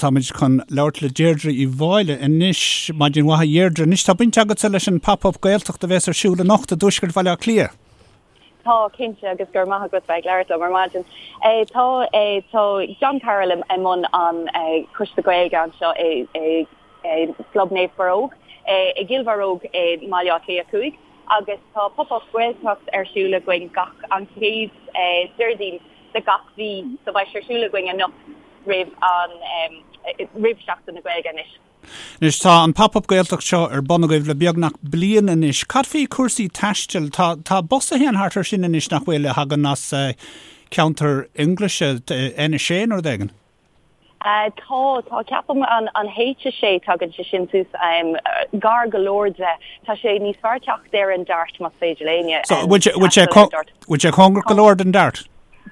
Táimid chun labhairt le Deirdre Uí Mháille anois. Maidin mhaith a Dheirdre. Anois tá baint agatsa leis an Pop Up Gaeltacht a bhéas ar siúl anocht i dtuaisceart Bhaile Átha Cliath. Tá, cinnte, agus go raibh maith agat bheith ag labhairt liom ar maidin. Tá, tá John Carroll i mbun an Choiste Gaeilge anseo i gClub Naomh Barróg i gCill Bharróg i mBaile Átha Cliath 5 agus tá Pop Up Gaeltacht ar siúl againn gach an chéad Déardaoin de gach mhí so beidh sé ar siúl againn anocht roimh an roimh Seachtain na Gaeilge anois. Anois tá an Pop Up Gaeltacht seo ar bun agaibh le beagnach bliain anois. Cad faoi chúrsaí taistil? Tá tá bus a théann thart ar sin anois nach bhfuil a thagann as ceantar Fhionnghlaise, N6 nó rud éigin? Tá, tá, ceapaim an an H6 tagann sé sin suas gar go leor de. Tá sé níos fearr teacht ar an Dart más féidir le éinne. So bhfuil sé bhfuil sé bhfuil sé cóngarach go leor don Dart?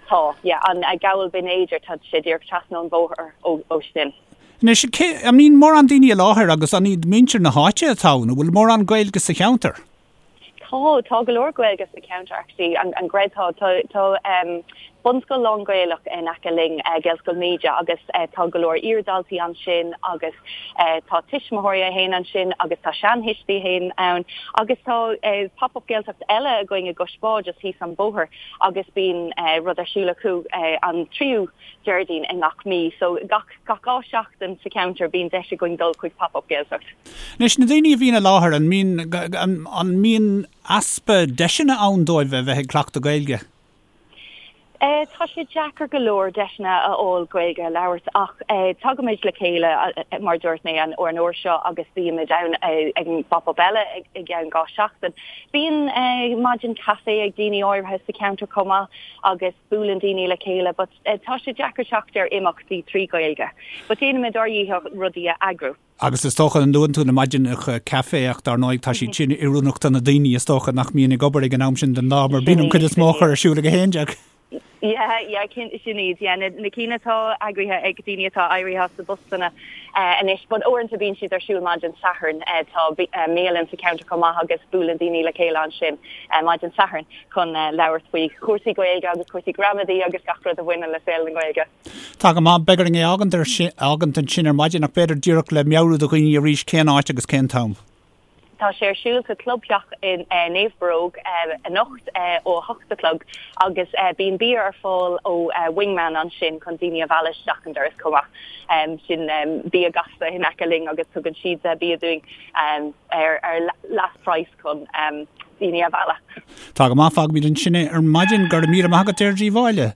Tá, yeah, an Gabhal Binn Éadair, tá sé díreach trasna an bhóthar ó ó sin. Anois, cé, an mbíonn mórán daoine i láthair agus an iad muintir na háite atá ann? An bhfuil mórán Gaeilge sa cheantar? Tá, tá go leor Gaeilge sa cheantar actually, an, an gcreidfeá. Tá, tá um, bunscoil lán-Ghaelach in aice linn, uh, Gaelscoil Míde, agus uh, tá go leor iardhaltaí ansin agus uh, tá tuismitheoirí a théann ansin agus tá seanthuistí a théann ann agus tá uh, pop-up Gaeltacht eile againn i gCois Bá just thíos an bóthar agus bíonn uh, rud ar siúl acu uh, an tríú Déardaoin i ngach mí. So gach, gach 2 seachtain sa cheantar bíonn deis againn dul chuig pop-up Gaeltacht. Anois, na daoine a bhíonn i láthair, an mbíonn, an mbíonn easpa deiseanna ann dóibh a bheith ag cleachtadh Gaeilge? Tá sé deacair go leor deiseanna a fháil Gaeilge a labhairt ach tagaimid le chéile, mar dúirt mé, an uair seo agus bímid ann ag an bpop-up eile i gceann 2 seachtain. Bíonn maidin caife ag daoine áirithe sa cheantar chomh maith agus buaileann daoine le chéile but tá sé deacair teacht ar imeachtaí trí Ghaeilge. But déanaimid ár ndícheall rudaí a eagrú. Agus is dócha, luann tú na maidineacha caife ach dar ndóigh tá siad sin oiriúnach do na daoine is dócha nach mbíonn ag obair ag an am sin den lá mar bíonn an cuid is mó acu ar siúl ag a 11. Yeah, yeah, sin iad, yeah, na, na cinn atá eagraithe ag daoine atá éirithe as a bpostanna anois, but uaireanta bíonn siad ar siúl maidin Sathairn, tá bialann sa cheantar chomh maith agus buaileann daoine le chéile ansin maidin Sathairn chun labhairt faoi chúrsaí Gaeilge agus cúrsaí gramadaí agus gach rud a bhaineann le saol na Gaeilge. Tá go maith. Beidh orainn é a fhágaint ansin ar maidin ach b'fhéidir díreach le meabhrú do dhaoine arís cén áit agus cén t-am. Tá sé ar siúl sa Chlubtheach i Naomh Barróg anocht ó 8 a chlog agus bíonn bia ar fáil ó Wingman ansin chun daoine a mhealladh isteach an doras chomh maith. Sin bia gasta in aice linn agus tugann siad bia dúinn ar leath praghas chun daoine a mhealladh. Tá go maith, fágfaimid ansin é ar maidin. Go raibh míle maith agat, Deirdre Uí Mháille.